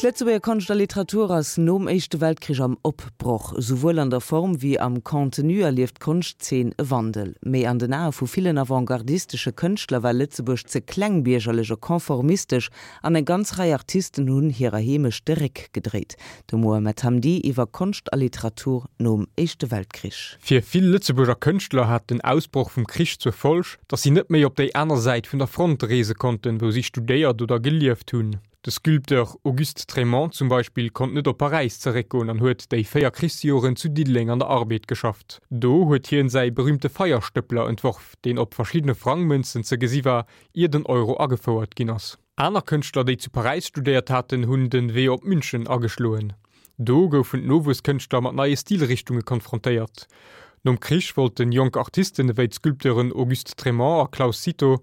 D'Lëtzebuerger Konscht a Literatur ass nom Éischte Weltkrich am Opbroch. Souwuel an der Form wéi am Contenu erlieft d'Konschtzeen e Wandel. Mee an den Ae vu villen avantgardistesche Kënschtler war Lëtzebuerg ze klengbiergerlech a konformistesch an eng ganz Rei Artisten hunn hirer Heemecht de Réck gedréit. De Mohamed Hamdi iwwer Konscht a Literatur nom Éischte Weltkrich. Fir vill Lëtzebuerger Kënschtler hat den Ausbroch vum Krich zur Folg, datt si net méi op déi aner Säit vun der Front reese konnten, wou si studéiert oder gelieft hunn. De Sculpteur Auguste Trémont zum Beispill konnt net op Paräis zeréckgoen an huet déi 4 Krichsjoren zu Diddeleng an der Arbed geschafft. Do huet hien säi berüümte Feierstëppler entworf, deen op verschiddene Frangmënzen ze gesi war, ier den Euro agefouert ginn ass. Aner Kënschtler, déi zu Paräis studéiert haten, hunn den Wee op München ageschloen. Do goufen d'Nowuesskënschtler mat neie Stilrichtunge konfrontéiert. Nom Krich wollten jonk Artisten ewéi d'Sculpteuren Auguste Trémont a Claus Cito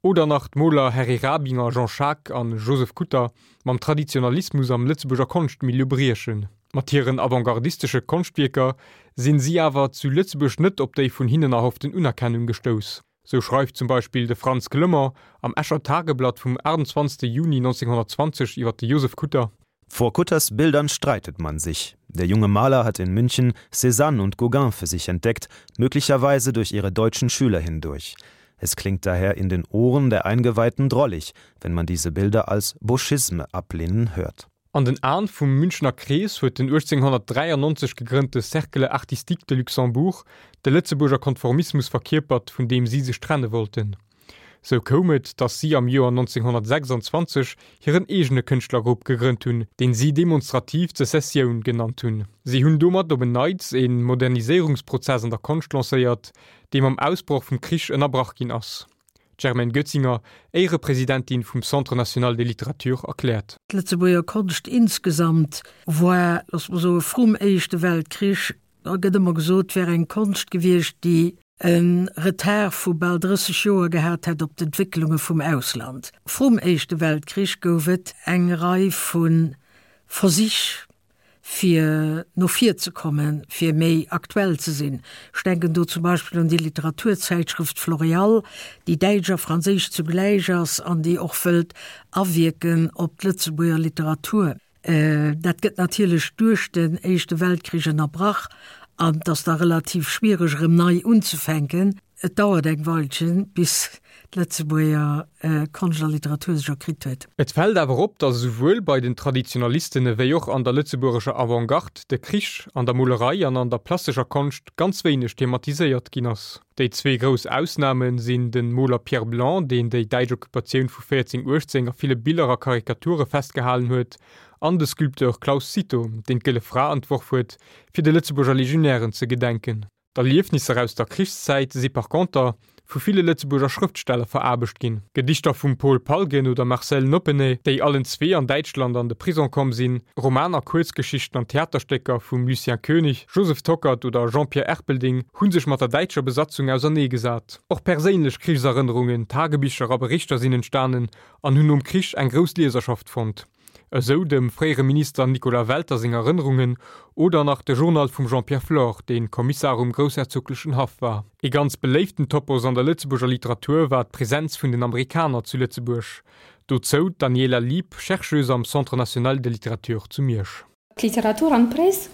Oder nach d'Moler Harry Rabinger, Jean Schaack an Joseph Kutter mam Traditionalismus am Lëtzebuerger Konschtmilieu briechen. Mat hiren avantgardistesche Konschtwierker sinn si awer zu Lëtzebuerg net op déi vun hinnen erhofften Unerkennung gestouss. Sou schreift zum Beispill de Frantz Clement am Escher Tageblatt vum 28 Juni 1920 iwwer de Joseph Kutter, Vor Kutters Bildern streitet man sich. Der junge Maler hat in München Cézanne und Gauguin für sich entdeckt, möglicherweise durch ihre deutschen Schüler hindurch. Es klingt daher in den Ohren der Eingeweihten drollig, wenn man diese Bilder als Boschisme ablehnen hört. An den Aen vum Münchener Krees huet den 1893 gegrënnte Cercle artistique de Luxembourg de Lëtzebuerger Konformismus verkierpert, vun deem si sech trenne wollten. Sou koum et, datt si am Joer 1926 hiren eegene Kënschtlergrupp gegrënnt hunn, deen si demonstrativ Sezessioun genannt hunn. Si hunn domat op en Neits e Moderniséierungsprozess an der Konscht lancéiert, dee mam Ausbroch vum Krich ënnerbrach ginn ass. D'Germaine Goetzinger, Éierepresidentin vum Centre national de littérature, erkläert. D'Lëtzebuerger Konscht insgesamt war, loosse mer soen, vrum Éischte Weltkrich Da gëtt ëmmer gesot, et wär eng Konscht gewiescht, déi e Retard vu bal 30 Joer gehat hätt op d'Entwécklunge vum Ausland. Vrum Éischte Weltkrich gouf et eng Rei vu Versich, fir no vir ze kommen, fir méi aktuell ze sinn. Ech denken do zum Beispill un déi Literaturzäitschrëft Floréal, déi däitsch a franséisch zugläich ass an déi och wëllt awierken op d'Lëtzebuerger Literatur. Dat gëtt natierlech duerch den Éischte Weltkrich ënnerbrach an et ass da relativ schwiereg erëm nei unzefänken. Et dauert eng Weilchen, bis d'Lëtzebuerger Konscht a Literatur sech erkritt huet. Et fält awer op, datt esouwuel bei den Traditionalisten ewéi och an der lëtzebuergescher Avantgarde de Krich an der Molerei an an der plastescher Konscht ganz wéineg thematiséiert ginn ass. Déi zwee grouss Ausname sinn de Moler Pierre Blanc, deen déi däitsch Occupatioun vu 1418 a ville Biller a Karikature festgehalen huet, an de Sculpteur Claus Cito, deen d'Gëlle Fra entworf huet, fir de Lëtzebuerger Legionären ze gedenken. D'Erliefnisser aus der Krichszäit si par conter vu ville Lëtzebuerger Schrëftsteller veraarbecht ginn. Gedichter vum Paul Palgen oder Marcel Noppeney, déi allen zwee an Däitschland an de Prison komm sinn, Romaner, Kuerzgeschichten an Theaterstécker vum Lucien Koenig, Joseph Tockert oder Jean-Pierre Erpelding hu sech mat der däitscher Besatzung auserneegesat. Och perséinlech Krichserënnerungen, Tagebicher a Berichter sinn entstanen an hunn nom Krich eng grouss Lieserschaft fonnt. Esou dem fréiere Minister Nicolas Welter seng Erënnerungen oder nach de Journal vum Jean-Pierre Flore, dee Kommissar um groussherzoglechen Haff war. Ee ganz beléiften Topos an der Lëtzebuerger Literatur war d'Presenz vun den Amerikaner zu Lëtzebuerg. Dozou d'Daniela Lieb, Chercheuse am Centre national de littérature zu Miersch. D'Literatur an d'Press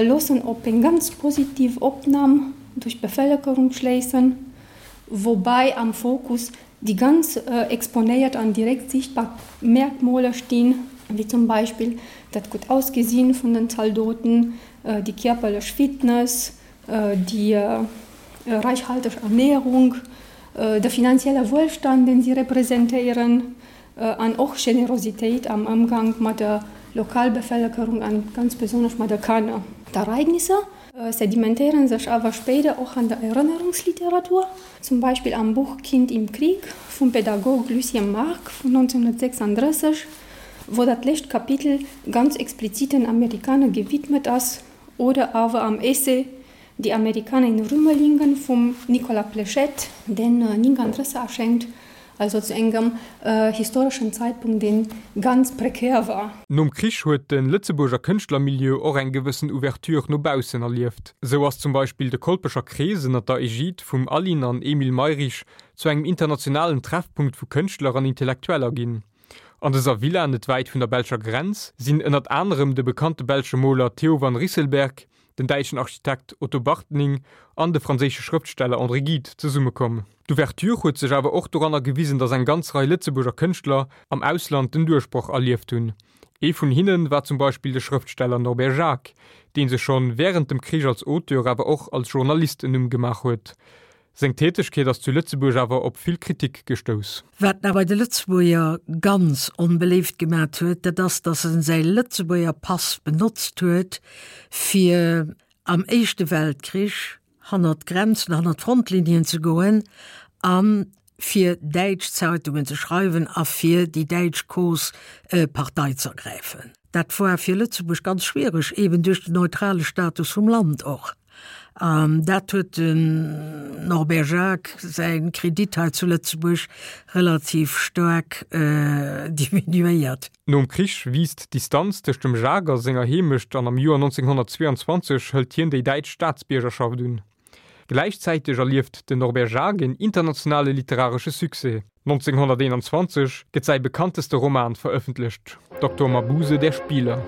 loossen op eng ganz positiv Opnam duerch d'Bevëlkerung schléissen, woubäi am Fokus déi ganz exponéiert an direkt sichtbar Merkmoler stinn, wéi zum Beispill dat gutt Ausgesinn vun den Zaldoten, déi kierperlech Fitness, déi räichhalteg Ernährung, de finanzielle Wuelstand, deen si representéieren, an och Generositéit am Ëmgang mat der Lokalbevëlkerung an ganz besonnesch mat de Kanner. D'Ereignisser sedimentéiere sech awer spéider och an der Erënnerungsliteratur, zum Beispill am Buch Kind im Krieg vum Pädagog Lucien Marc vun 1936, wou dat lescht Kapitel ganz explizit den Amerikaner gewidmet ass, oder awer am Essay Die Amerikaner in Rümelingen vum Nicolas Pléchette, deen 39 erschéngt, also zu engem historeschen Zeitpunkt, dee ganz prekär war. Nom Krich huet de Lëtzebuerger Kënschtlermilieu och eng gewëssen Ouverture no baussen erlieft. Sou ass zum Beispill de Kolpecher Krees ënner der Egide vum Aline an Emile Mayrisch zu engem internationalen Treffpunkt vu Kënschtler an Intellektueller ginn. An dëser Villa, net wäit vun der belscher Grenz, sinn ënnert anerem de bekannte belsche Moler Theo van Rysselberghe, den däitschen Architekt Otto Bartning an de franséische Schrëftsteller André Gide zesummekomm. D'Ouverture huet sech awer och doranner gewisen, datt eng ganz Rei Lëtzebuerger Kënschtler am Ausland den Duerchbroch erlieft hunn. Ee vun hinne war zum Beispill de Schrëftsteller Norbert Jacques, dee sech schonn wärend dem Krich als Auteur awer och als Journalist en Numm gemaach huet. Seng Tätegkeet ass zu Lëtzebuerg awer op vill Kritik gestouss. Wat en awer bei de Lëtzebuerger ganz onbeléift gemat huet, dat ass, datt en säi Lëtzebuerger Pass benotzt huet, fir am Éischte Weltkrich hannert d'Grenzen, hannert d'Frontlinien ze goen a fir däitsch Zeitungen ze schreiwen a fir déi däitsch Cause Partei z'ergräifen. Dat war fir Lëtzebuerg ganz schwiereg, eben duerch den neutrale Status vum Land och. An dat huet den Norbert Jacques säi Kredit hei zu Lëtzebuerg relativ staark diminuéiert. Nom Krich wiisst d'Distanz tëscht dem Jacques a senger Heemecht an am Joer 1922 hëlt hien déi däitsch Staatsbiergerschaft un. Gläichzäiteg erlieft den Norbert Jacques een internationale literaresche Succès. 1921 gëtt säi bekannteste Roman verëffentlecht, Doktor Mabuse, der Spieler.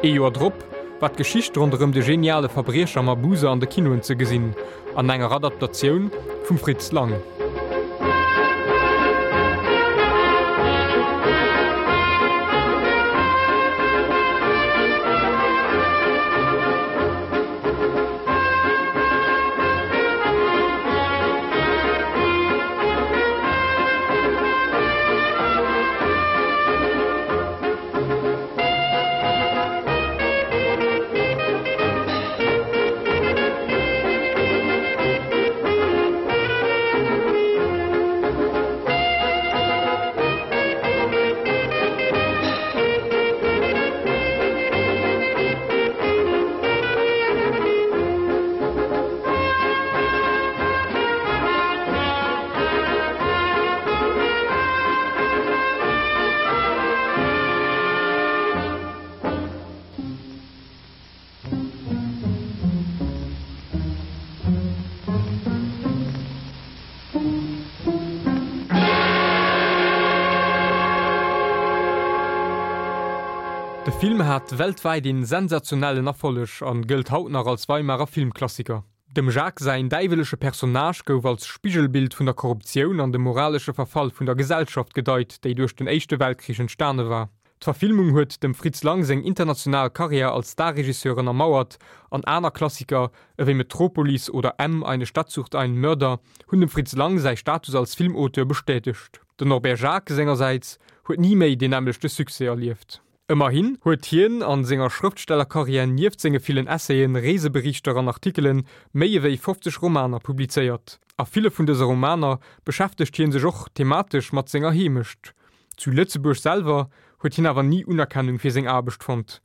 Ee Joer drop war d'Geschicht ronderëm de geniale Verbriecher Mabuse an de Kinoen ze gesinn, an enger Adaptatioun vum Fritz Lang. De Film hat weltwäit een sensationellen Erfolleg an gëllt haut nach als Weimarer Filmklassiker. Dem Jacques säin däiwelesche Personnage gouf als Spigelbild vun der Korruptioun an dem moralesche Verfall vun der Gesellschaft gedeit, déi duerch den Éischte Weltkrich entstane war. D'Verfilmung huet dem Fritz Lang seng international Karriär als Starregisseur ënnermauert an aner Klassiker ewéi Metropolis oder M, Eine Stadt sucht einen Mörder hunn dem Fritz Lang säi Status als Filmauteur bestätegt. Den Norbert Jacques sengersäits huet ni méi deen nämmlechte Succès erlieft. Ëmmerhin huet hien a senger Schrëftstellerkarriär nieft senge villen Essayen, Reeseberichter an Artikelen méi ewéi 50 Romaner publizéiert. A ville vun dëse Romaner beschäftegt hie sech och thematesch mat senger Heemecht. Zu Lëtzebuerg selwer huet hien awer ni Unerkennung fir seng Aarbecht fonnt.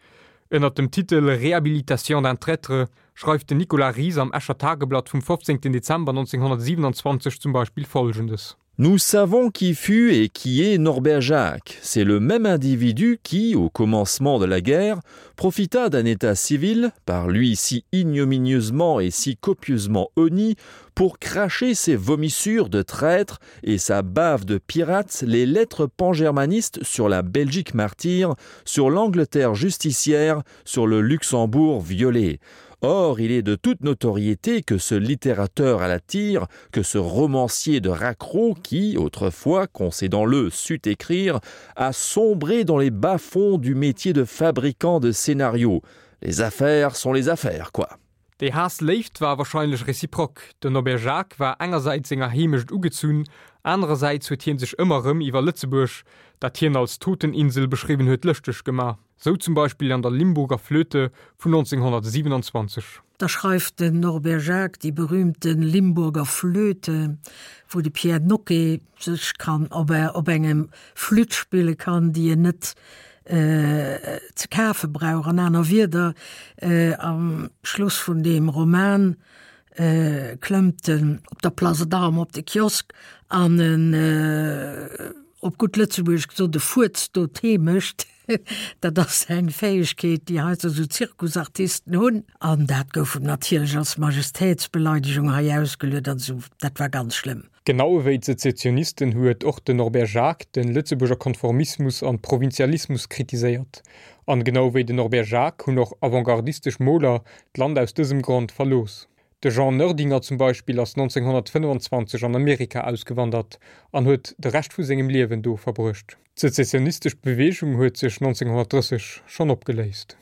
Ënnert dem Titel Réhabilitation d'un traître schreift den Nicolas Ries am Escher Tageblatt vum 15 Dezember 1927 zum Beispill Folgendes. Nous savons qui fut et qui est Norbert Jacques. C'est le même individu qui, au commencement de la guerre, profita d'un état civil, par lui si ignominieusement et si copieusement honni, pour cracher ses vomissures de traître et sa bave de pirate les lettres pangermanistes sur la Belgique martyre, sur l'Angleterre justicière, sur le Luxembourg violé. Or, il est de toute notoriété que ce littérateur à la tire, que ce romancier de raccro qui, autrefois, concédant-le, sut écrire, a sombré dans les bas-fonds du métier de fabricant de scénarios. Les affaires sont les affaires, quoi. Déi Haass-Léift war warscheinlech reziprok, Den Norbert Jacques war engersäits senger Heemecht ugezunn, anerersäits huet hie sech ëmmer erëm iwwer Lëtzebuerg, dat hien als Toteninsel beschriwwen huet, lëschteg gemaach. Sou zum Beispill an der Limburger Flöte vun 1927. Da schreift den Norbert Jacques déi berühmte Limburger Flöte, wou de Pierre Nocqué sech kann op op engem Flütt spille kann, déi en net ze kafe brauch. An aner Wierder, am Schluss vun deem Roman klëmmt en op der Place d'Armes op de Kiosk an en. op gutt Lëtzebuergesch gesot, e Fuerz do Tee mécht, dat ass eng Fäegkeet, déi heiansdo esou Zirkusartisten hunn. An dat gouf em natierlech als Majestätsbeleidegung hei ausgeluet an esou. Dat war ganz schlëmm. Genau ewéi d'Sezessionisten huet och den Norbert Jacques de Lëtzebuerger Konformismus an Provinzialismus kritiséiert. An genau ewéi den Norbert Jacques hunn och avantgardistesch Moler d'Land aus dësem Grond verlooss. De Jean Noerdinger zum Beispill ass 1925 an Amerika ausgewandert an huet de Rescht vu sengem Liewen do verbruecht. D'sezessionistesch Beweegung huet sech 1930 schonn opgeléist.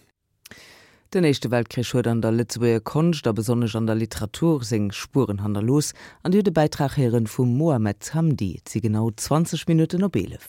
Den Éischte Weltkrich huet an der Lëtzebuerger Konscht a besonnesch an der Literatur seng Spueren hannerlooss. An Dir hutt e Bäitrag héieren vum Mohamed Hamdi. Et si genau 20 Minutten op 11.